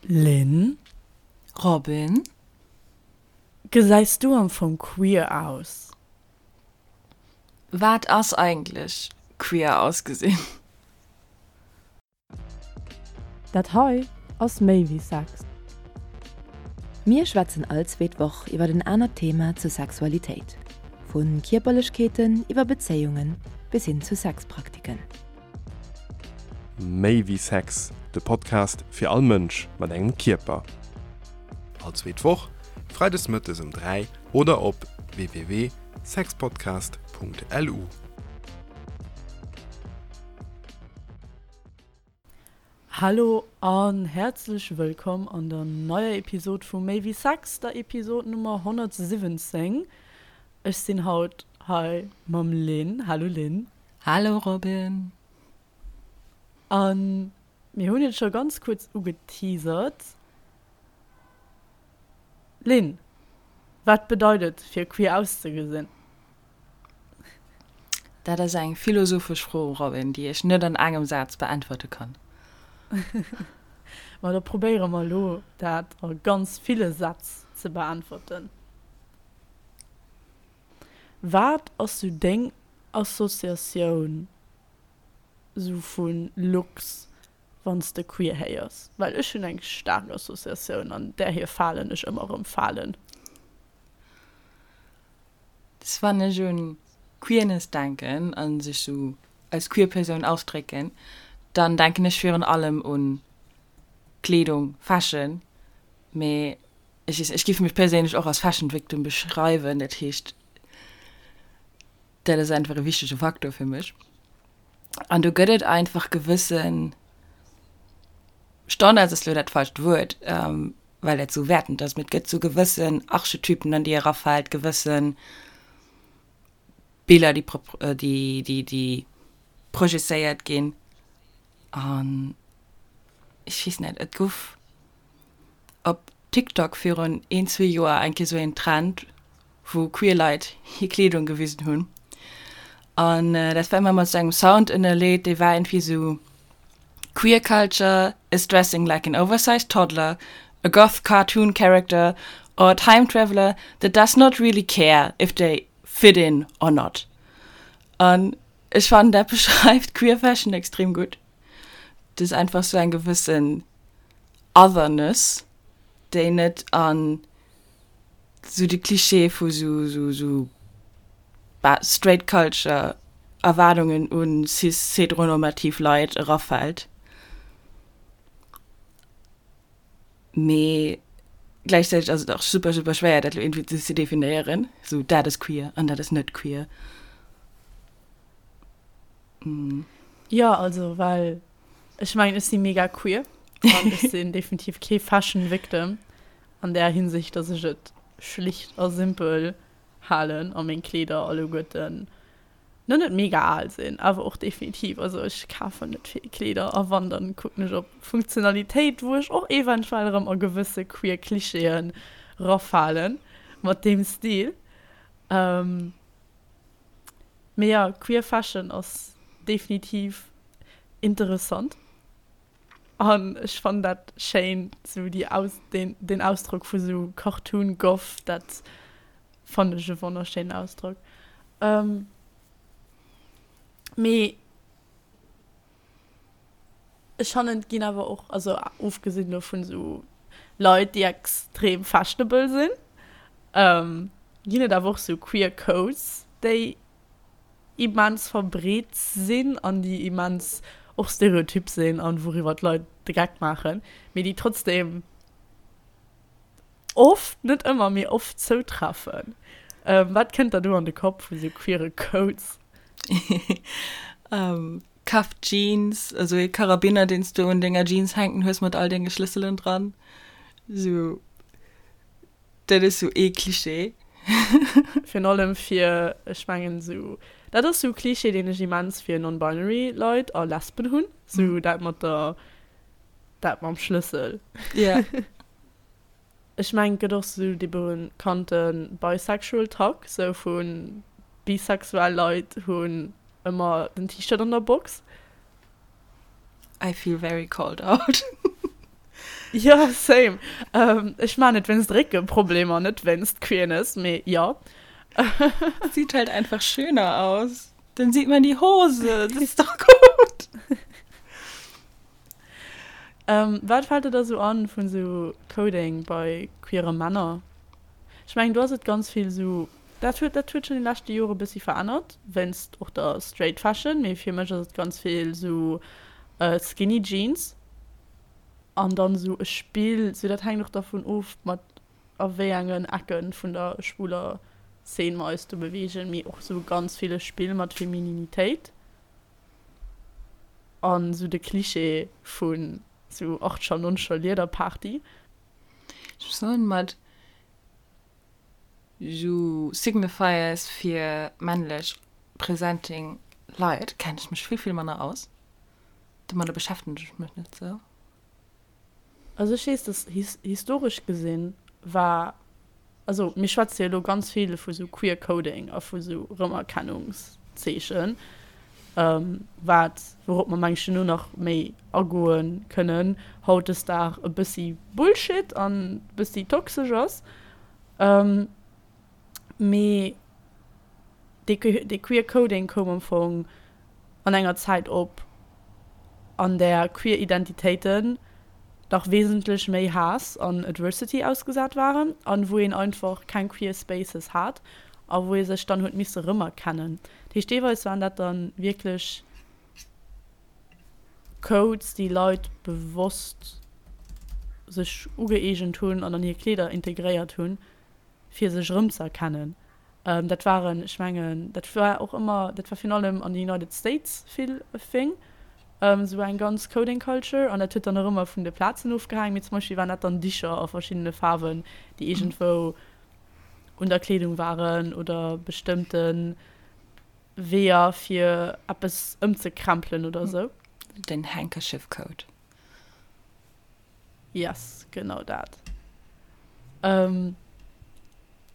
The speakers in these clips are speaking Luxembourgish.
Lynn? Robin? Gesäis du am Fong queer aus? Wat ass eigentlech queer ausgesinn? Dat hei ass méi wéi Sex. Mir schwätzen all zweet Woch iwwer en anert Thema zur Sexualitéit, vu Kierperlechkeeten iwwer Bezéiungen bis hin zu Sexpraktiken. Méi wéi Sex, de Podcast fir all Mënsch mat engem Kierper. All zweet Woch, freides mëttes um 3 oder op www.sexpodcast.lu. Hallo an häerzlech wëllkomm an der neier Episod vu Méi wéi Sex, der Episod Nummer 117. Ech sinn haut hei mam Lynn. Hallo Lynn. Hallo Robin. An mir hunn et scho ganz kuerz ugeteasert. Lynn, wat bedeit et fir queer auszegesinn? Dat ass eng philosophesch Fro, Robin, déi ech net an engem Saz beäntwerte kann. Ma da probéiere mer elo dat a ganz ville Sätz ze beäntwerten. Wat ass sou deng Associatioun sou vu Looks wann s de queer héiers? Well ech hunn eng staark Associatioun an där hir Falen ech ëmmer erëm falen. Dass wann ech un Queerness denken a sech sou als queer Persoun ausdrécken, dann denken ech virun allem un Kleedung, Fashion, mee Ech weess, ech géif mech perséinlech och als Fashion Victim beschreiwen, dat heescht, dat ass einfach e wichtege Faktor fir mech. An do gëtt et einfach gewësse Standards, ass elo dat falscht Wuert, well dat esou wäertend ass, mee et gëtt esou gewëssen Archetypen, an déi erafält, gewësse Biller, déi, déi, déi projezéiert ginn. An ech weess net, et gouf op TikTok virun een, zwee Joer eng Kéier sou een Trend, wou queer Leit hir Kleedung gewisen hunn. An dat war ëmmer mat sou engem Sound ënnerleet, dee war iergendwéi sou, Queer culture is dressing like an oversized toddler, a goth cartoon character or a time traveler that does not really care if they fit in or not. An ech fannen, dat beschreift queer fashion extrem gutt. Et ass einfach sou eng gewëssen Otherness, déi net an sou de Klischee vu sou sou sou straight culture Erwaardungen un cis-heteronormativ Leit erafält. Mee gläichzäiteg ass et och super super schwéier dat lo iergendwéi ze definéieren, sou dat ass queer an dat ass net queer. Jo, also well ech mengen ech si mega queer an ech sinn definitiv kee Fashion Victim an där Hinsicht, dass ech et schlicht a simpel halen a meng Kleeder alleguerten no net mega al sinn, awer och definitiv, also ech kafen net vill Kleeder a wann dann kucken ech op Funktionalitéit, wou ech och eventuell erëm a gewësse queer Klischeeën rafalen mat deem Stil. Mee jo, queer Fashion ass definitiv interessant an ech fannen dat schéin, sou déi Aus, deen, deen Ausdrock vu sou Cartoon Goth, dat fannen ech e wonnerschéinen Ausdrock. Mee ech fannen et ginn awer och, also ofgesinn elo vun sou Leit déi extrem fashionable sinn, ginn et awer och sou queer Codes déi immens verbreet sinn an déi immens och stereotyp sinn an wouriwwer d'Leit de Geck maachen, mee déi trotzdem oft, net ëmmer, mee oft zoutreffen. Wat kënnt der do an de Kopp vu sou queere Codes? Cuffed Jeans, also ee Karabiner, deen s du un denger Jeans hänken hues mat all denge Schlësselen dran. Sou, dat ass sou ee Klischee. Virun allem fir, ech mengen sou, dat ass sou e Klischee, deen ech immens fir non-binary Leit a Lesben hunn, sou dat mat der, dat mam Schlëssel. Ja. Ech mengen et gëtt och sou dee bekannte bisexual Tag, sou vu bisexuell Leit hunn ëmmer den T-Shirt an der Box. I feel very called out. Jo, same. Ech maan et wéinst Réckeproblemer, net wéinst Queerness, mee jo. Sieht halt einfach schöner aus. Dann sieht man die Hose, das ist doch gut. Wat fällt der da sou an vun sou Coding bei queere Männer? Ech mengen do ass et ganz vill sou, dat huet dat huet schonn déi leschte Jore bëssi verännert wéinst och der Straight Fashion, mee fir mech ass et ganz vill sou Skinny Jeans an dann sou e Spill, sou dat hänkt och dervun of mat a wéi engen Ecke vun der schwuler Szene mer eis do beweegen, mee och sou ganz vill e Spill mat Femininitéit. An sou de Cliché vun sou achtscher, nonzger Liederparty. Ech muss soen, mat sou Signifiers fir männlech presenting Leit kenn ech mech vill, vill manner aus. Domadder beschäftegen ech mech net sou. Also ech weess, dass historesch gesinn war, also mir schwätze jo elo ganz vill vu sou Queer Coding a vu sou Rëmerkennungszeechen, wat, wourop mer meng ech duerno nach méi agoe kënnen, hautdesdag e bëssi Bullshit an e bëssi toxesch ass. Mee dee Queer Coding koum am Fong an enger Zäit op, an där queer Identitéiten nach wesentlech méi Haass an Adversity ausgesat waren an wou een einfach keng queer Spaces hat a wou ee sech dann huet misse rëmerkennen. Dat heescht, deelweis waren dat dann wierklech Codes, déi Leit bewosst sech ugëeegent hunn an an hir Kleeder integréiert hunn, fir sech erëmzëerkennen. Dat waren, ech mengen, dat war och ëmmer, dat war virun allem an de United States vill e Thing, esou eng ganz Coding Culture. An dat huet dann och ëmmer vun de Plazen ofgehaang. Mee zum Beispill waren dat dann Dicher a verschiddene Faarwen, déi iergendwou un der Kleedung waren oder bestëmmte Weeër, fir eppes ëmzekrempelen oder esou. Den Handkerchief Code. Yes, genau dat. Ähm,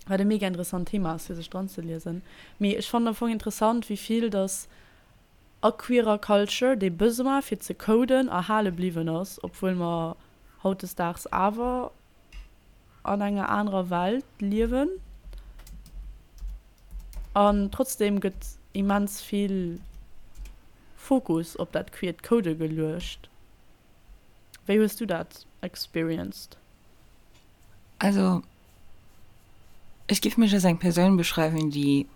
wat e mega interessant Thema ass, fir sech dran ze liesen. Mee ech fannen am Fong interessant, wéi vill dass a queerer Culture dee Besoin fir ze coden erhale bliwwen ass, obwuel mer hautdesdaags awer an enger anerer Welt liewen. An trotzdem gëtt immens vill Fokus op dat queert Code geluecht. Wéi hues du dat experienced? Also ech giff mech als eng Persoun beschreiwen, déi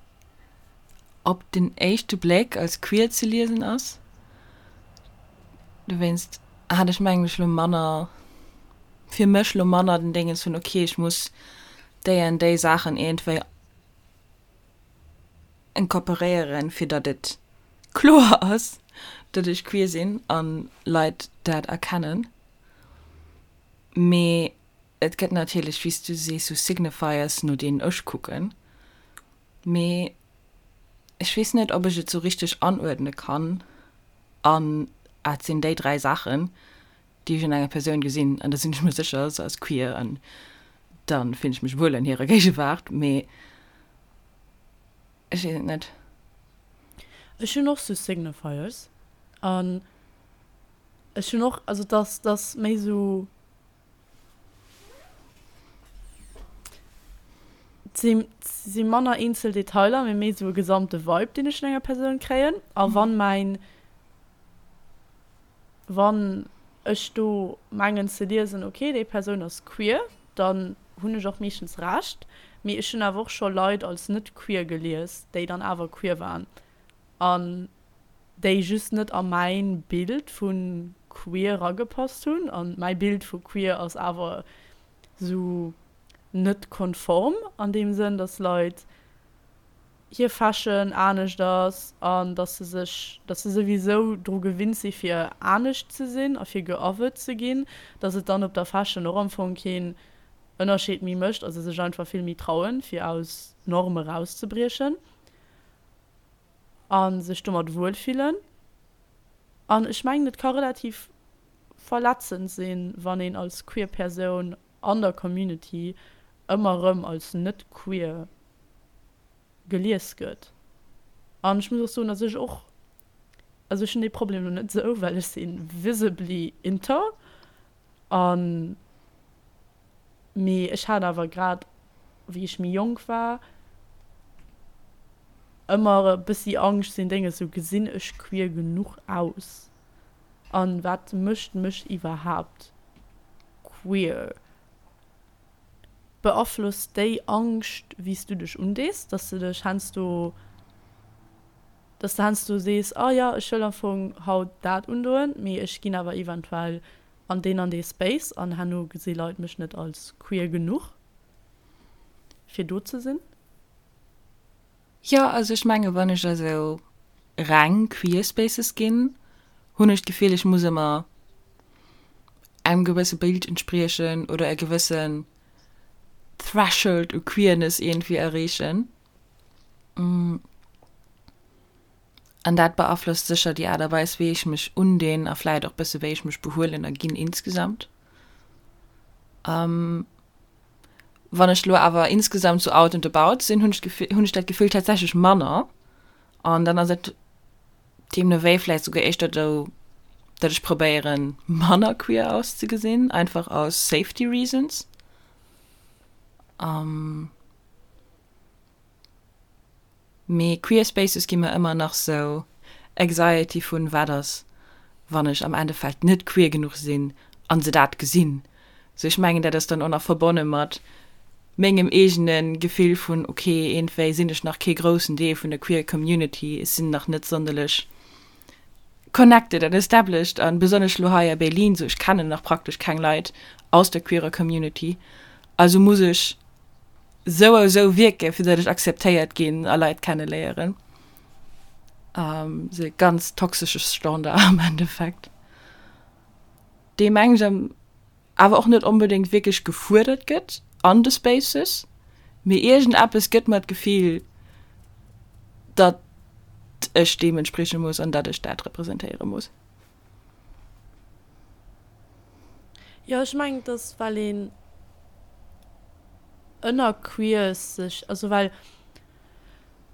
op den éischte Bléck als queer ze liesen ass. Dowéinst hat ech mengen ech lo manner, fir mech lo manner den Déngens vun ok ech muss déi an déi Saachen iergendwéi incorporéieren, fir datt et kloer ass, datt ech queer sinn an Leit dat erkennen. Mee et gëtt natierlech, wéi s du sees, sou Signifiers, no deenen ech kucken. Mee ech weess net, ob ech et sou richteg anuerdne kann an et sinn déi 3 Saachen, déi ech un enger Persoun gesinn an da sinn ech mer sécher, se ass queer an da fillen ech mech wuel an hirer Géigewaart, mee ech weess et net. Ech hunn och sou Signifiers an ech hunn och, also dass dass méi sou et si manner eenzel Detailer, mee méi sou e gesamte Vibe, deen ech vun enger Persoun kréien a wann mäin Wann ech do mengen ze liesen, ok, déi Persoun ass queer, dann hunn ech och meeschtens Recht. Mee ech hunn awer och scho Leit als net queer gelies, déi dann awer queer waren an déi just net a mäin Bild vu queer eragepasst hunn. An mäi Bild vu queer ass awer sou net konform an deem Sënn, dass Leit hir Fashion anescht ass an dass se sech, dass se souwisou dru gewinnt si fir anescht ze sinn a fir geothert ze ginn, dass et dann op der Fashion och am Fong keen Ënnerscheed méi mécht a se sech einfach vill méi trauen, fir aus Norme rauszebriechen a sech domat wuel fillen. An ech mengen, et ka relativ verletzend sinn, wann een als queer Persoun an der Community ëmmer erëm als net queer gelies gëtt. An ech muss och soen, datt ech och, also ech hunn dee Problem lo net esou, well ech si visibly inter. An, mee ech hat awer grad wéi ech méi jonk war ëmmer e bëssi Angscht sinn Dénge sou gesinn ech queer genuch aus an wat mécht mech iwwerhaapt queer? Beaflosst déi Angscht wéi s du dech undees, dass de dech heiansdo dass de heiansdo sees, ah jo ech wëll am Fong haut dat undoen, mee ech ginn awer eventuell an deen an dee Space an herno gesi Leit mech net als queer genuch fir do ze sinn? Jo, also ech menge wann ech a sou reng queer Spaces ginn, hunn ech d'Gefill ech muss ëmmer engem gewësse Bild entspriechen oder e gewëssen Threshold u Queerness iergendwéi erreechen. An dat beaflosst sécher déi Aart a Weis wéi ech mech undinn a vläit och bësse wéi ech mech behuelen a ginn insgesamt. Wann ech lo awer insgesamt sou out and about sinn, hunn ech d'Gefill, hunn ech dat Gefill tatsächlech manner. An dann ass et deemno wéi vläicht souguer éischter esou, datt ech probéieren, manner queer auszegesinn, einfach aus safety reasons. Mee queer Spaces gi mer ëmmer nach sou Anxiety vun wat ass wann ech am Endeffekt net queer genuch sinn an se dat gesinn. Sou ech mengen dat ass dann och nach verbonne mat mengem eegene Gefill vun ok iergendwéi sinn ech nach kee groussen Deel vun der queer Community, ech sinn nach net sonderlech connected an established an besonnesch lo hei a Berlin sou ech kennen nach praktesch keng Leit aus der queerer Community also muss ech sou a sou wierken, fir datt ech akzeptéiert ginn a Leit kenneléieren. Sou e ganz toxesche Standard am Endeffekt, dee mengen ech awer och net onbedéngt wierklech gefuerdert gëtt an de Spaces, mee iergendeppes gëtt mer d'Gefill, datt ech deem entsprieche muss an datt ech dat representéiere muss. Jo, ech mengen, et ass, well een ënner Queers sech, also well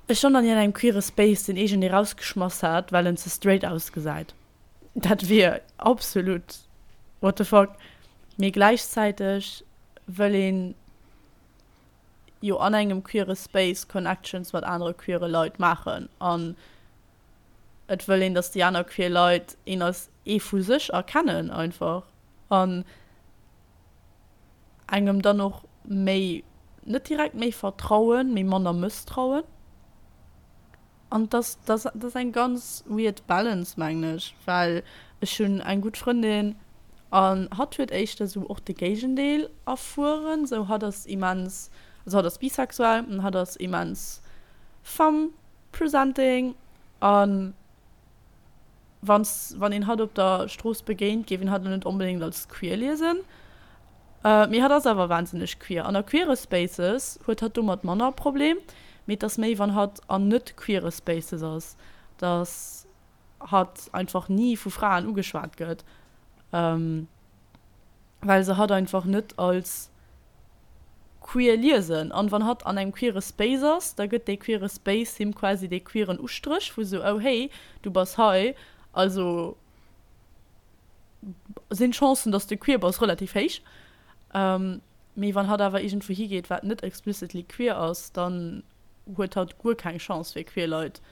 ech schonn an engem queere Space sinn, iergendee rausgeschmass hat, well en ze straight ausgesäit. Dat wier absolut what the fuck. Mee gläichzäiteg wëll een jo an engem queere Space Connections mat anere queere Leit maachen an et wëll een, datt déi aner queer Leit een als ee vu sech erkennen einfach an engem dann och méi, net direkt méi vertrauen, mee manner mësstrauen. An dass dass dat ass eng ganz weird Balance mengen ech, well ech hunn eng gutt Frëndin an hatt huet éischter sou och de Géigendeel erfueren, sou hatt ass immens, also hatt ass bisexuell an hatt ass immens femme Presenting an wanns wann een hatt op der Strooss begéint, géif een hatt lo net onbedéngt als queer liesen. Mee hatt ass awer wahnsinneg queer. An a queere Spaces huet hatt domat manner Problem, mee et ass méi wann hatt an net queere Spaces ass, dass hatt einfach ni vu Fraen ugeschwat gëtt, well se hatt einfach net als queer liesen. An wann hatt an engem queere Space ass, da gëtt dee queere Space him quasi dee queeren Ustréch vu sou, oh hey, du bass hei, also sinn d'Chancen, dass de queer bass, relativ héich. Mee wann hatt awer iergendwou higeet, wat net explicitly queer ass, dann huet hatt guer keng Chance fir queer Leit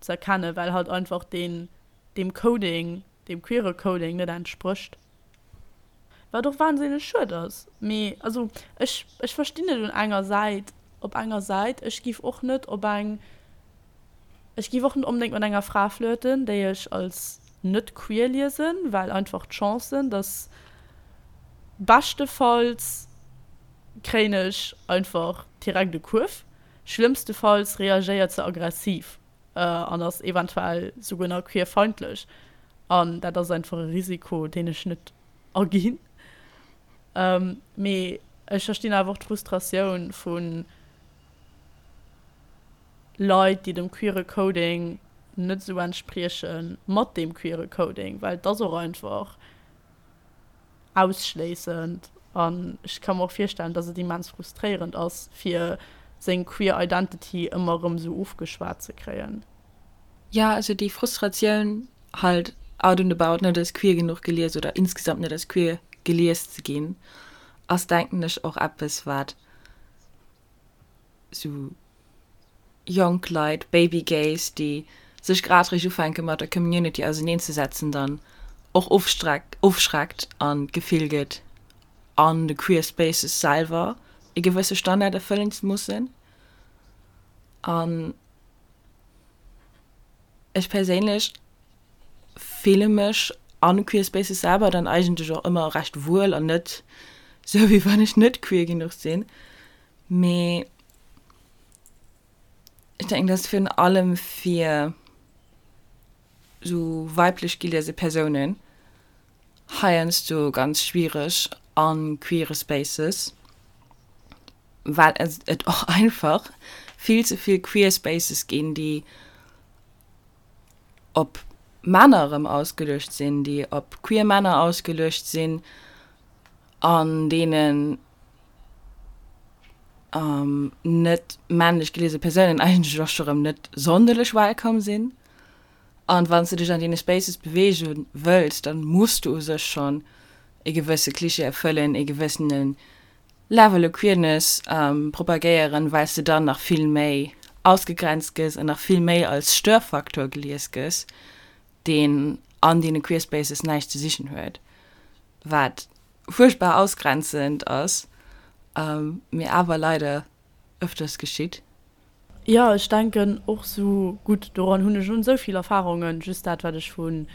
ze erkennen, well hatt einfach deen, deem Coding, deem queere Coding net entsprécht. Wat och wahnsinneg schued ass. Mee also ech, ech verstinn et un enger Säit, op enger Säit, ech giff och net op eng, ech giff och net onbedéngt mat enger Fra flirten, déi ech als net queer liesen, well einfach d'Chancen, dass beschtefalls kréien ech einfach direkt e Kuerf, schlëmmstefalls reagéiert se aggressiv. an ass eventuell souguer nach queerfeindlech. An dat ass einfach e Risiko, deen ech net aginn. Mee ech verstinn awer och d'Frustratioun vu Leit, déi dem queere Coding net esou entspriechen, mat deem queere Coding, well et ass och einfach ausschléissend an ech ka mer och virstellen, dass et immens frustréierend ass, fir seng queer Identity ëmmer erëm esou ofgeschwat ze kréien. Jo, also déi Frustratioun halt out and about net als queer genuch gelies oder insgesamt net als queer. gelies ze ginn, ass denken ech och eppes wat sou jonk Leit, Baby Gays, déi sech grad réischt ufänke mat der Community auseneen ze setzen, dann och ofschreckt an d'Gefill gëtt an de queer Spaces selwer e gewësse Standard erfëllen ze mussen. An ech perséinlech fille mech an queer Spaces selwer dann eigentlech och ëmmer recht wuel an net sou wéi wann ech net queer genuch sinn. Mee ech denken, dass virun allem fir sou weiblech geliese Persounen heiansdo ganz schwiereg a queere Spaces, well et och einfach vill ze vill queer Spaces ginn, déi op Männer erëm ausgeluecht sinn, déi op queer Männer ausgeluecht sinn, an deenen net männlech geliese Persounen eigentlech och scho rëm net sonderlech welcome sinn. An wann s de dech an deene Spaces beweege wëlls, dann muss du u sech schonn e gewësse Klischee erfëllen, e gewëssene Level u Queerness propagéieren, well s de dann nach vill méi ausgegrenzt gëss an nach vill méi als Störfaktor gelies gëss, deen an deene Queer Spaces näischt ze sichen huet, wat fuerchtbar ausgrenzend ass, mee awer leider ëfters geschitt. Jo, ech denken och sou. Gutt, doran hunn ech un esou vill Erfahrungen, just dat wat ech vu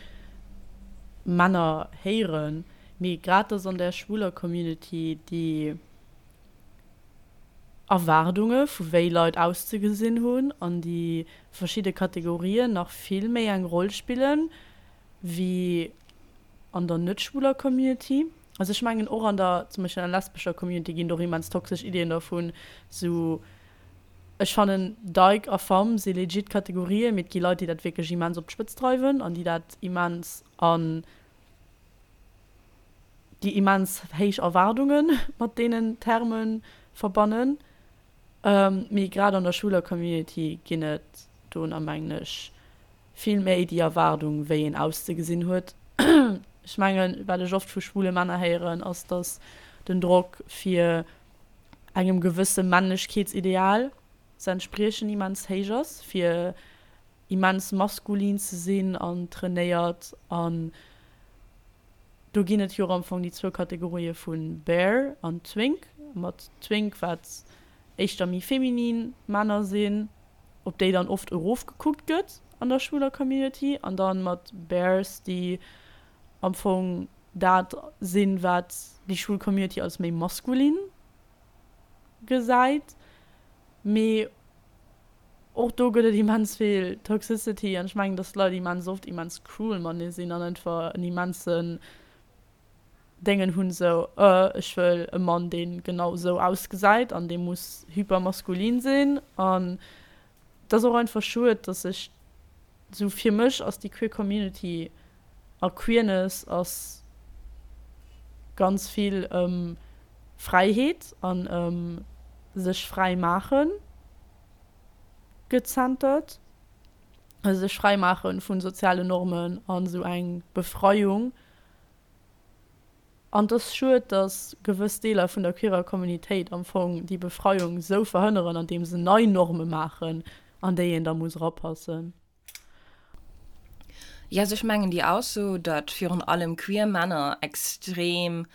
Männer héieren, mee grad dass an där schwuler Community déi Erwaardunge vu wéi Leit auszegesinn hunn an déi verschidde Kategorien nach vill méi eng Roll spillen wéi an der net schwuler Community. Also ech mengen och an der zum Beispill an der lesbescher Community ginn et och immens toxesch Iddien dervun, sou Ech fannen Dyke a Femme si legit Kategorien, mee et gi Leit déi dat wierklech immens op d'Spëtz dreiwen an déi dat immens an déi immens héich Erwaardunge mat deenen Terme verbannen. Mee grad an der schwuler Community ginn et do na mengen ech vill méi déi Erwaardung wéi een auszegesinn huet. Ech mengen wat ech oft vu schwule Männer héieren ass, datt den Drock fir engem gewësse Männlechkeetsideal ze entspriechen immens héich ass, fir immens maskulin ze sinn an trainéiert an do ginn et jo am Fong déi zwou Kategorië vu Bear an Twink, mat Twink wat éischter méi feminin Männer sinn, op déi dann oft erofgekuckt gëtt an der schwuler Community an dann mat Bears déi am Fong dat sinn, wat déi schwul Community als méi maskulin gesäit. Mee och do gëtt et immens vill Toxicity an ech mengen, dass d'Leit immens oft immens cruel matenee sinn an einfach en immensen Déngen hunn, sou, euh, ech wëll e Mann, dee genau sou ausgesäit an dee muss hypermaskulin sinn. An et ass och einfach schued, dass sech sou, fir mech ass déi queer Community a Queerness ass ganz vill ëm Fräiheet an ëm sech fräi maachen gezentert, also sech fräi maache vu sozialen Normen an esou eng Befreiung. An et ass schued, datt gewëss Deeler vun der queerer Communitéit am Fong déi Befreiung esou verhënneren, andeem se nei Norme maachen, an déi een da muss erapassen. Jo, also ech mengen déi Ausso, datt virun allem queer Männer extrem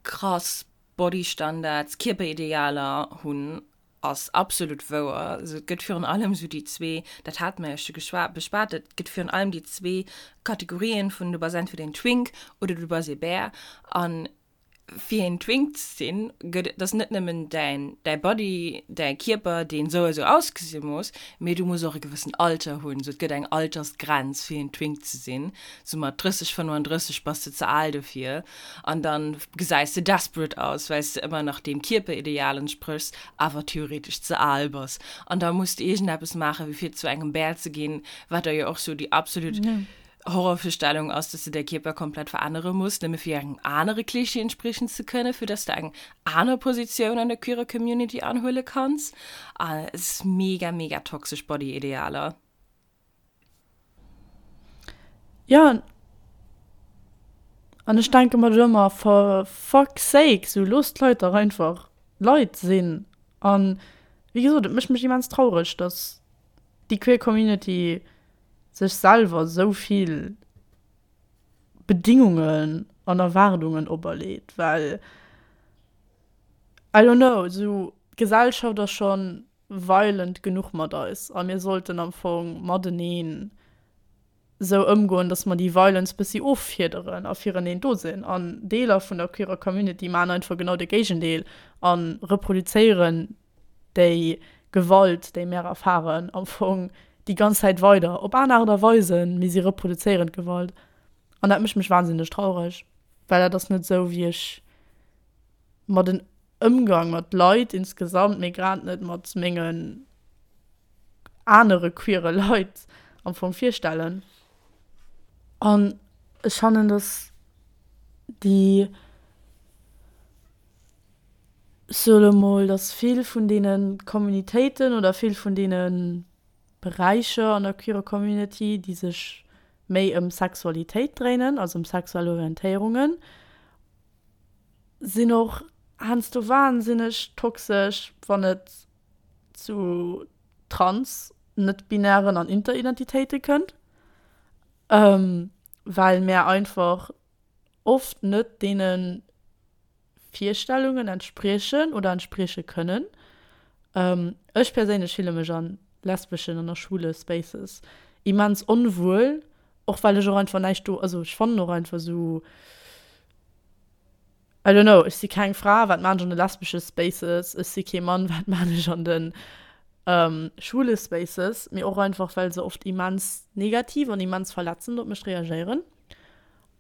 krass Bodystandards, Kierperidealer hunn, ass absolut wouer. Also et gëtt virun allem esou déi zwee, dat hate mer jo scho geschwa beschwat, et gëtt virun allem déi zwee Kategorien vun du bass entweder een Twink oder du bass ee Bär. An fir een Twink ze sinn, gëtt et, ass net nëmmen däin däi Body, däi Kierper, deen esou a sou ausgesi muss, mee du muss och e gewëssen Alter hunn. Esou et gëtt eng Altersgrenz fir een Twink ze sinn, sou mat 30, 35 bass de ze al dofir. An dann gesäis de desperate aus, well s de ëmmer nach deem Kierperideal entspréchs, awer theoretesch ze al bass. An da muss de iergendeppes maachen, wéi fir zu engem Bär ze ginn, wat da jo och sou déi absolut Horrorvirstellung ass, dass de däi Kierper komplett verännere muss, nëmme fir engem anere Klischee entspriechen ze kënnen, fir dass de eng aner Positioun an der queerer Community anhuele kanns. An et ass mega, mega toxesch Body-Idealer. Jo, An ech denke mer do ëmmer, for fuck's sake, sou loosst d'Leit dach einfach Leit sinn. An wéi gesot, et mécht mech immens traureg, dass déi queer Community sech selwer sou vill Bedingungen an Erwaardungen operleet, well I don't know, sou d'Gesellschaft ass schonn violent genuch mat eis a mir sollten am Fong mateneen sou ëmgoen, dass mer déi Violence bëssi offiederen a fireneen do sinn. An Deeler vun der queerer Community maachen einfach genau de Géigendeel a reproduzéieren déi Gewalt, déi mär erfaren, am Fong déi ganz Zäit weider, op aner Aart a Weisen, mee si reproduzéieren d'Gewalt. An dat mécht mech wahnsinneg traureg, well dat ass net sou, wéi ech mer den Ëmgang mat Leit insgesamt, mee grad net mat mengen anere queere Leit am Fong virstellen. An ech fannen, dass déi, ech soe lo mol, dass vill vun deene Communitéiten oder vill vun deene Beräicher an der queerer Community, déi sech méi ëm Sexualitéit dréinen, also ëm sexuell Orientéierungen, sinn och heiansdo wahnsinneg toxesch, wann et zu trans, net-binären an Interidentitéite kënnt, well mär einfach oft net deene Virstellungen entspriechen oder entsprieche kënnen. Ech perséinlech fille mech a lesbeschen an a schwule Spaces immens onwuel, och well ech och einfach näischt do, also ech fannen och einfach esou, I don't know, ech si keng Fra, wat maan ech an de lesbesche Spaces? Ech si kee Mann, wat maan ech an de schwule Spaces? Mee och einfach, well se oft immens negativ an immens verletzend op mech reagéieren.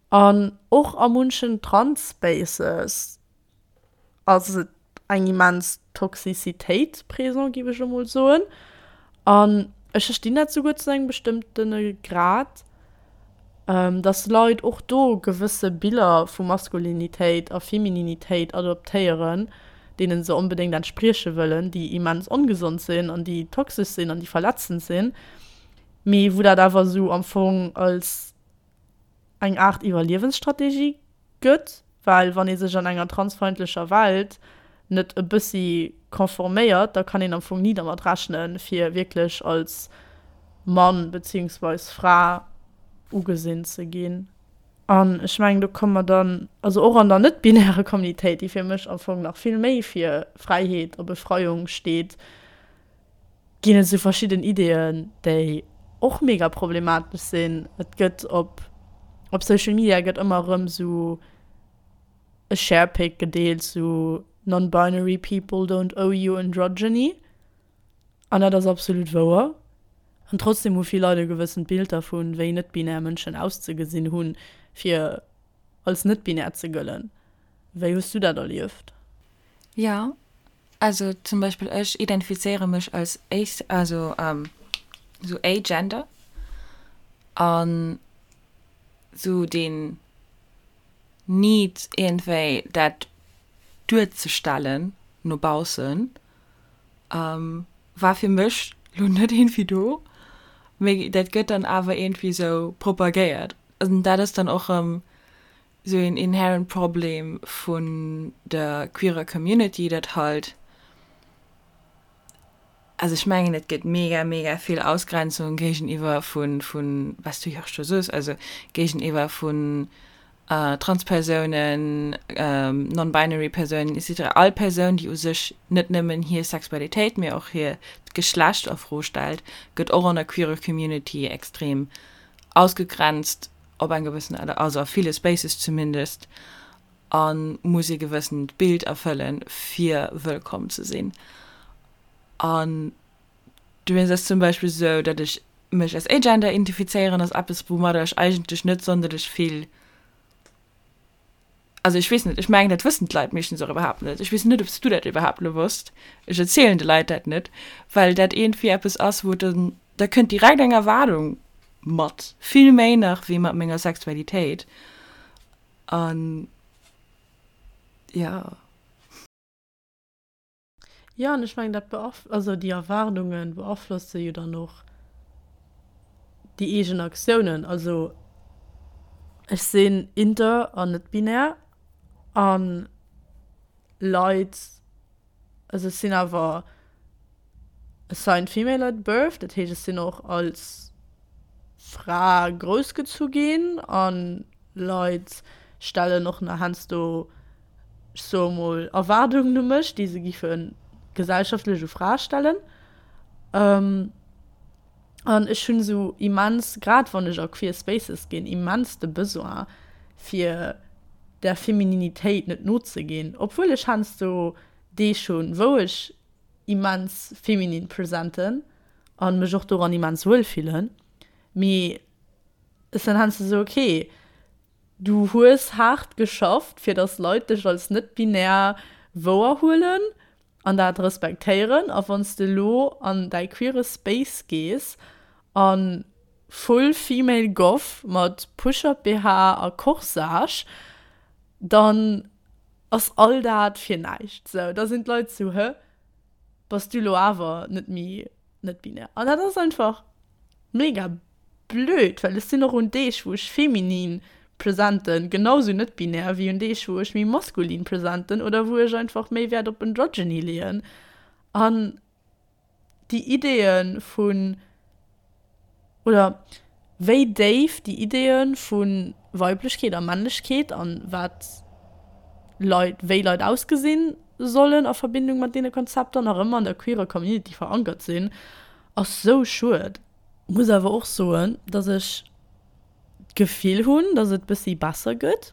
An och a munchen Trans-Spaces ass et eng immens Toxicitéit présent, géif ech elo mol soen. An ech verstinn dat souguer zu engem bestëmmtene Grad, dass Leit och do gewësse Biller vu Maskulinitéit a Femininitéit adoptéieren, deene se onbedéngt entsprieche wëllen, déi immens ongesond sinn an déi toxesch sinn an déi verletzend sinn, mee wou dat awer esou am Fong als eng Aart Iwwerliewensstrategie gëtt, well wann ee sech an enger transfeindlecher Welt net e bëssi conforméiert, da kann een am Fong ni dermat rechnen, fir wierklech als Mann beziehungsweis Fra ugesinn ze ginn. An ech mengen, do komme mer dann, also och an der net-binärer Communitéit, déi fir mech am Fong nach vill méi fir Fräiheet a Befreiung steet, ginn et esou verschidden Ideeën, déi och mega problematesch sinn. Et gëtt op op Social Media gëtt ëmmer erëm esou e Sharepic gedeelt, sou Non-binary people don't owe you androgyny. An dat ass absolut wouer. An trotzdem hu vill Leit e gewëssent Bild dervun, wéi net-binär Mënschen auszegesinn hunn, fir als net-binär ze gëllen. Wéi hues du dat erlieft? Jo, also zum Beispill ech identifizéiere mech als ace, also sou agender an sou deen Need iergendwéi dat duerzestellen no baussen war fir mech lo net iergendwéi do, mee dat gëtt dann awer iergendwéi sou propagéiert an dat ass dann och erëm sou een inherent Problem vun der queerer Community, dat halt, also ech mengen et gëtt mega mega vill Ausgrenzung géigeniwwer vun, vun wat s du jo och scho soos, also géigeniwwer vun Transpersounen, non-binary Persounen et cetera, all Persoun déi u sech net nëmmen hir Sexualitéit, mee och hiert Geschlecht a Fro stellt, gëtt och an der queerer Community extrem ausgegrenzt. op eng gewëssen Aart, also a ville Spaces zumindest, a muss ee gewëssent Bild erfëllen, fir wëllkomm ze sinn. An dowéinst ass zum Beispill esou, datt ech mech als agender identifizéieren, ass eppes, woumadder ech eigentlech net sonderlech vill, also ech weess net, ech mengen, dat wëssen d'Leit meeschtens och iwwerhaapt net. Ech weess net, ob s du dat iwwerhaapt elo wosst. Ech erzielen de Leit dat net, well dat iergendwéi eppes ass, wou dann, da kënnt direkt eng Erwaardung mat, vill méi nach wéi mat menger Sexualitéit. An jo. Jo, an ech mengen, dat beaf-, also déi Erwaardunge beaflosse jo dann och déi eegen Aktiounen. Also. Ech sinn inter an net binär an Leit, also ech sinn awer assigned female at birth, dat heescht ech sinn och als Fra groussgezu ginn an Leit stellen och nach heiansdo, ech soe mol, Erwaardungen u mech, déi se giffe gesellschaftlech u Frae stellen. An ech hunn esou immens, grad wann ech a queer Spaces ginn, immens de Besoin fir der Femininitéit net nozeginn, obwuel ech heiansdo Deeg hunn, wou ech immens feminin presenten a mech och doran immens wuel fillen, mee ech sinn heiansdo esou, okay, du hues haart geschafft fir datt Leit dech als net-binär wouerhuelen an dat respektéieren a wann s de elo an däi queere Space gees a full female goth mat Push-up BH a Corsage, dann ass all dat fir näischt. Sou, da sinn d'Leit sou, hë, bass du elo awer net méi net binär? An dat ass einfach mega Blöd, well ech sinn och un Deeg wou ech feminin presenten genau sou net binär wéi un Deeg wou ech méi maskulin presenten oder wou ech einfach méi Wäert op Androgyny leeën. An déi Ideeë vun, oder wéi déif déi Ideeë vu Weiblechkeet a Männlechkeet an wat Leit, wéi Leit ausgesinn sollen a Verbindung mat deene Konzepter nach ëmmer an der queerer Community verankert sinn, ass sou schued. Muss awer och soen, dass ech d'Gefill hunn, dass et bëssi besser gëtt.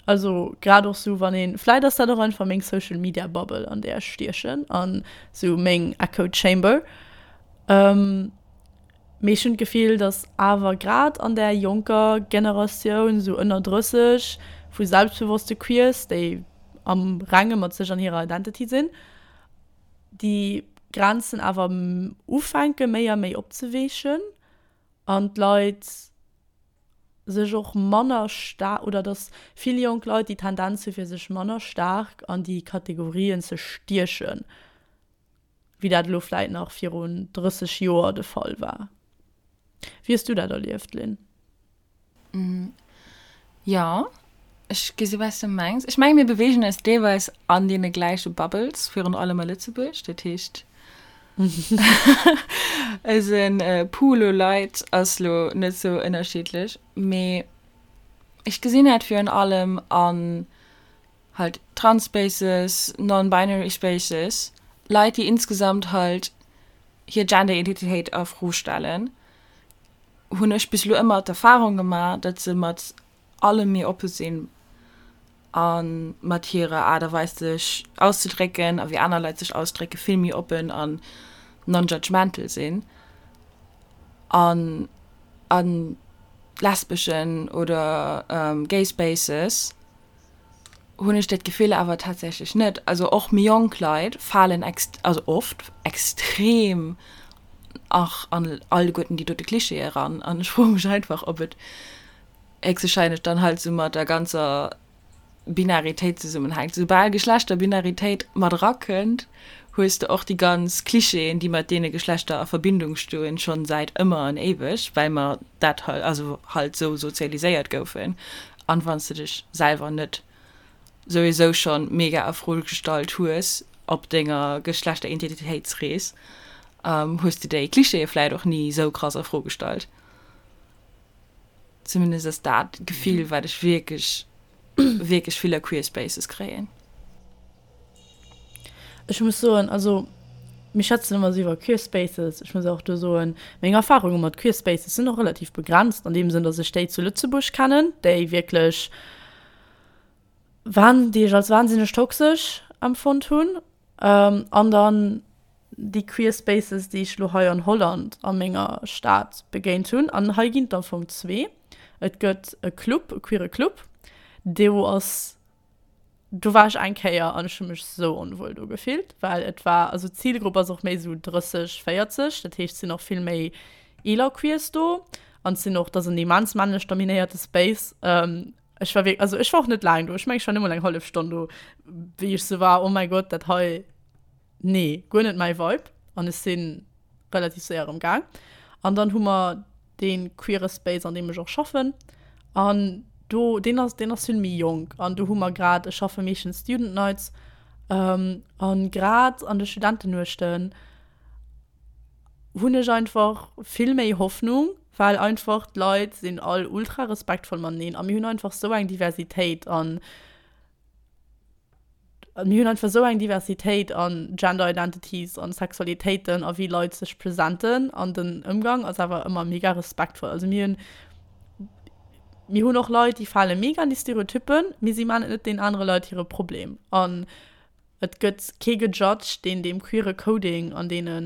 Also grad och sou wann een, vläit ass dat och einfach meng Social Media Bubble an där ech stiechen an sou meng Echo Chamber. Mee ech hunn d'Gefill, dass awer grad an där jonker Generatioun, sou ënner 30, vu selbstbewosste Queers, déi am Renge mat sech an hirer Identity sinn, déi Grenzen awer ufänke méi a méi opzeweechen an d'Leit sech och manner staark, oder datt vill jonk Leit déi Tendenz hu fir sech manner staark an déi Kategorien ze stiechen, wéi dat elo vläit nach virun 30 Joer de Fall war. Wéi hues du dat erlieft, Lynn? Jo, ech gesi wat s de mengs. Ech menge mir beweegen eis deelweis an deene gläiche Bubbles, virun allem a Lëtzebuerg. Dat heescht, eise Pool u Leit ass lo net sou ënnerschiddlech. Mee ech gesinn dat virun allem an halt Trans-Spaces, non-binary Spaces, Leit, déi insgesamt halt hir Gender-Identitéit a Fro stellen. hunn ech bis elo ëmmer d'Erfahrung gemaach, datt se mat allem méi oppe sinn a mat hirer Aart a Weis sech auszedrécken a wéi aner Leit sech ausdrécke vill méi oppen an non-judgmental sinn. An a lesbeschen oder gay Spaces hunn ech dat Gefill awer tatsächlech net. Also och méi jonk Leit falen also oft extrem och an alleguerten déi dote Klischeeë eran. An ech froe mech einfach, ob et héchstwahrscheinlech dann halt sou mat der ganzer Binaritéit zesummenhänkt. Soubal Geschlechterbinaritéit mat erakënnt, hues de och déi ganz Klischeeën, déi mat deene Geschlechter a Verbindung stoen, schonn säit ëmmer an éiweg, well mer dat also halt sou sozialiséiert goufen. An wann s de dech selwer net souwisou schonn mega a Fro gestallt hues op denger Geschlechteridentitéitsrees, hues de déi Klischeeë vläit och ni sou krass a Fro gestallt. Zumindest ass dat d'Gefill, wat ech wierklech, wierklech vill a Queer Spaces kréien. Ech muss soen, also mir schwätzen ëmmer esou iwwer Queer Spaces. Ech muss och do soen, meng Erfarunge mat Queer Spaces sinn och relativ begrenzt an deem Sënn, datt ech déi zu Lëtzebuerg kennen, déi wierklech wan-, déi ech als wahnsinneg toxesch empfonnt hunn. An dann déi Queer Spaces, déi ech elo hei an Holland a menger Stad begéint hunn. An hei ginn et am Fong zwee. Et gëtt e Club, e queere Club, do ass Do war ech eng Kéier an ech hu mech sou onwuel do gefillt, well et war, also d'Zilgrupp ass och méi sou 30, 40, dat heescht et sinn och vill méi eeler Queers do an et sinn och, et ass en immens männlech dominéierte Space. Ech war wierk, also ech war och net laang do, ech mengen ech war net mol eng hallef Stonn do, wéi ech sou war, oh mäi Gott, dat hei, nee, guer net mäi Vibe an ech si relativ séier erëm gaang. An dann hu mer dee queere Space, an deem ech och schaffen an. Do, deen ass, deen ass vill méi jonk an do hu mer grad, ech schaffe meeschtens Student Nights, an grad an de Studentennuechten hunn ech einfach vill méi Hoffnung, well einfach d'Leit sinn all ultra respektvoll mateneen a mir hunn einfach sou eng Diversitéit an mir hunn einfach sou eng Diversitéit an Gender Identities an Sexualitéiten a wéi Leit sech presenten an den Ëmgang ass awer ëmmer mega respektvoll. Also mir hunn mir hunn och Leit, déi fale mega an déi Stereotyppen, mee si man et net deenen anere Leit hire Problem an et gëtt kee gejudged, deen deem queere Coding an deene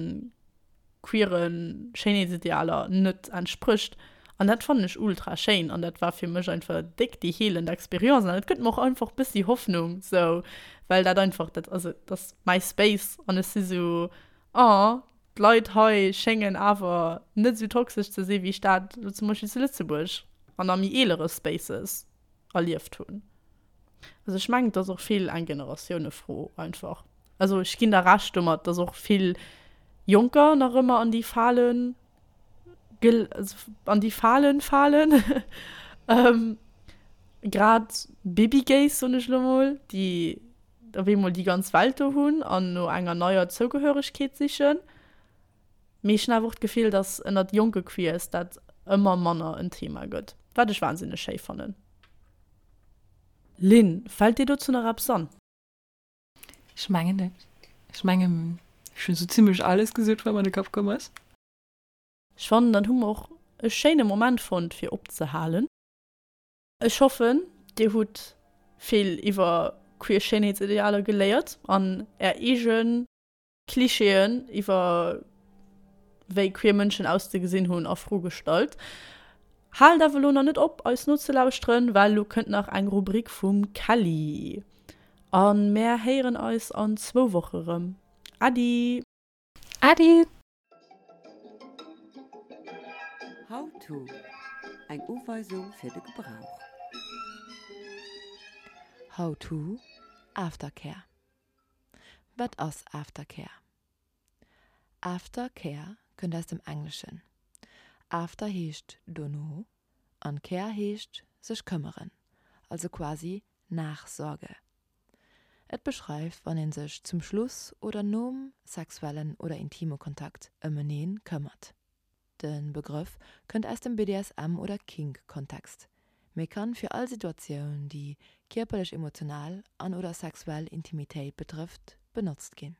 queere Schéinheetsidealer net entsprécht. An dat fannen ech ultra schéin an dat war fir mech einfach déck déi heelend Experience an et gëtt mer och einfach bëssi Hoffnung sou, well dat einfach dat also dat ass mäi Space an ech si sou, oh d'Leit hei schéngen awer net sou toxesch ze si wéi ech dat elo zum Beispill zu Lëtzebuerg an a méi eelere Spaces erlieft hunn. Also ech mengen, et ass och vill eng Generatiounefro einfach. Also ech ginn der Recht domat, dass och vill Jonker nach ëmmer an déi Falen an déi Falen falen. Grad Babygays, soen ech elo mol, déi op eemol déi ganz Welt do hunn an no enger neier Zougehöregkeet sichen. Mee ech hunn awer och d'Gefill, dass ënnert jonke Queers dat ëmmer manner en Thema gëtt, wat ech wahnsinneg schéi fannen. Lynn, fält dir dozou nach eppes an? Ech mengen net. Ech mengen, ech hunn esou zimmlech alles gesot, wat mer an de Kapp komm ass. Ech fannen, dann hu mer och e schéine Moment fonnt, fir opzehalen. Ech hoffen, dir hutt vill iwwer queer Schéinheetsidealer geléiert an är eegen Klischeeën iwwer wéi queer Mënschen auszegesinn hunn a Fro gestallt. Haalt awer elo nach net op eis nozelauschteren, well elo kënnt nach eng Rubrik vum Kelly. A mär héieren eis an zwou Woche rëm. Äddi! Äddi! How to, Eng Uweisung fir de Gebrauch. How to, Aftercare. Wat ass Aftercare? Aftercare kënnt aus dem Engleschen. After heescht dono an care heescht sech këmmeren, also quasi Nachsorge. Et beschreift wann een sech zum Schluss oder nom sexuellen oder intime Kontakt ëm eneen këmmert. De Begrëff kënnt aus dem BDSM oder Kink-Kontext, mee kann fir all Situatioun, déi kierperlech, emotional an oder sexuell Intimitéit betrëfft, benotzt ginn.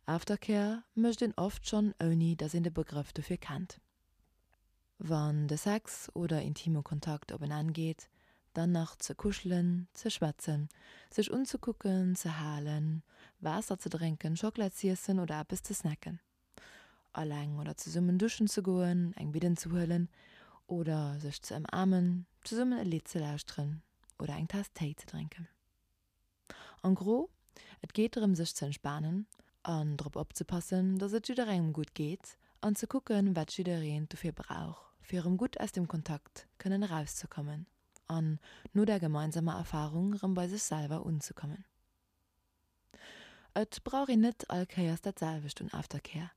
Aftercare mécht een oft schonn ouni dass een de Begrëff dofir kennt. Wann de Sex oder intime Kontakt op en Enn geet, dann nach ze kuschelen, ze schwätzen, sech unzekucken, ze halen, Waasser ze drénken, Schockela z'iessen oder eppes ze snacken. Alleng oder zesummen duschen ze goen, eng Bidden ze huelen oder sech ze ëmaarmen, zesummen e Lidd ze lauschteren oder eng Taass Téi ze drénken. En gros, et geet drëm sech ze entspanen an drop opzepassen, dass et jidderengem gutt geet an ze kucken, wat jiddereen dofir brauch, fir erëm gutt aus dem Kontakt kënnen erauszekommen an no der gemeinsamer Erfarung erëm bei sech selwer unzekommen. Et brauch een net all Kéiers dat selwecht un Aftercare.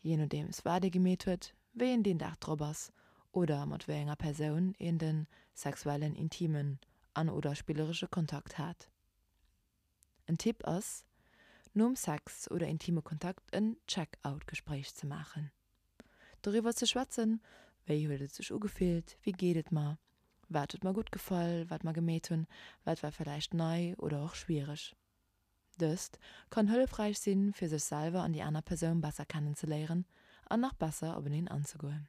Jee nodeems wat ee gemeet huet, wéi een deen Dag drop ass oder mat wéi enger Persoun een de sexuellen, intimen an oder spilleresche Kontakt hat. En Tipp ass, nom Sex oder intime Kontakt en Check-out-Gespréich ze maachen. Doriwwer ze schwätzen, wéi huet et sech ugefillt, wéi geet et mer, wat huet mer gutt gefall, wat mer gemeet hunn, wat war villäicht nei oder och schwiereg. Dëst kann hëllefräich sinn, fir sech selwer an déi aner Persoun besser kennenzeléieren an nach besser openeen anzegoen.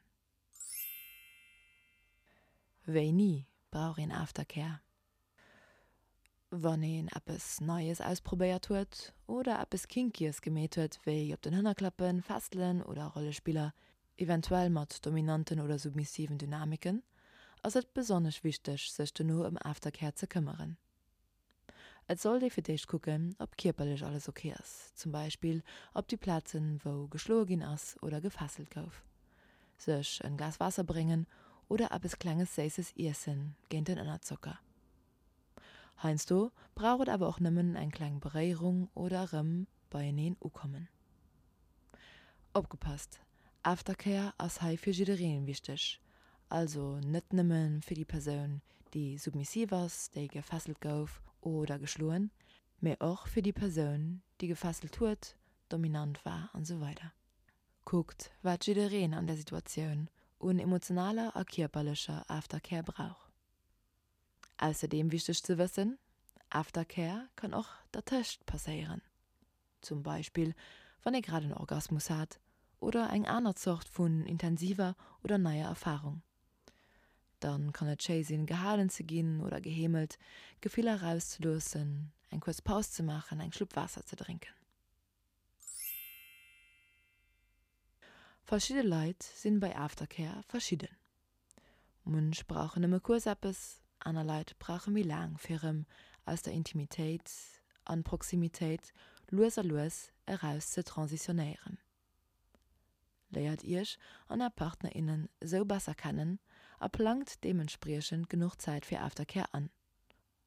Wéini brauch een Aftercare? Wann een eppes Neies ausprobéiert huet oder eppes Kinkyes gemeet huet, wéi op den Hënner klappen, Fesselen oder Rollespiller, eventuell mat dominanten oder submissiven Dynamiken, ass et besonnesch wichteg, sech dono ëm Aftercare ze këmmeren. Et sollt ee fir d'éischt kucken, ob kierperlech alles ok ass, zum Beispill op déi Plazen, wou geschloe ginn ass oder gefesselt gouf. Sech en Glas Waasser bréngen oder eppes klenges Séisses iessen géint den Ënnerzocker. Heiansdo brauch et awer och nëmmen eng kleng Beréierung oder erëm beieneen ukommen. Opgepasst, Aftercare ass hei fir jiddereen wichteg. Also net nëmme fir déi Persoun, déi submissiv ass, déi gefesselt gouf oder geschloen, mee och fir déi Persoun, déi gefesselt huet, dominant war an esou weider. Kuckt, wat jiddereen an där Situatioun un emotionaler a kierperlecher Aftercare brauch. Ausserdeem wichteg ze wëssen, Aftercare kann och dertëscht passéieren. Zum Beispill wann ee grad en Orgasmus hat oder eng aner Zort vun intensiver oder neier Erfarung. Dann kann et schéi sinn gehalen ze ginn oder geheemelt, Gefiller erauszeloossen, eng kuerz Paus ze maachen, eng Schlupp Waasser ze drénken. Verschidde Leit sinn bei Aftercare verschidden. Munch brauchen nëmme kuerz eppes, aner Leit brauche méi laang fir erëm aus der Intimitéit an Proximitéit lues a lues eraus ze transitionéieren. Léiert iech an är Partner, innen esou besser kennen a plangt deementspriechend genuch Zäit fir Aftercare an.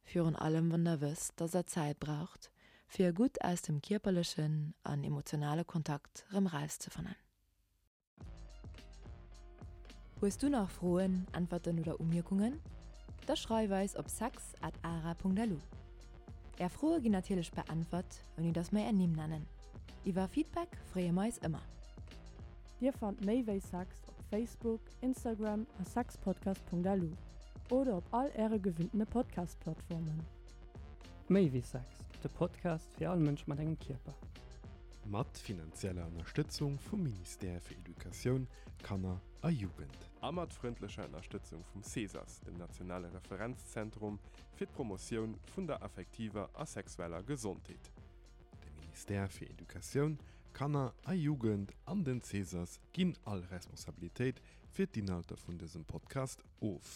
Virun allem wann der wësst, dass der Zäit braucht, fir gutt aus dem kierperlechen an emotionale Kontakt rëm rauszefannen. Hues du nach Froen, Äntwerten oder Umierkungen? Da schreif eis op sex at ara.lu. Är Froe ginn natierlech beäntwert, ouni dass mer är Nimm nennen. Iwwer Feedback freeë mer eis ëmmer. Dir fannt méi wéi Sex op Facebook, Instagram a sexpodcast.lu oder op all äre gewinntene Podcast-Plattformen. Méi wéi Sex, de Podcast fir all Mënsch mat engem Kierper. Mat finanzieller Ënnerstëtzung vum Ministère fir Educatioun, Kanner a Jugend. A mat frëndlecher Ënnerstëtzung vum CESAS, dem nationale Referenzzentrum fir d'Promotioun vun der affektiver a sexueller Gesondheet. De Ministère fir Educatioun, Kanner a Jugend an den CESAS ginn all Responsabilitéit fir d'Inhalter vun dësem Podcast of.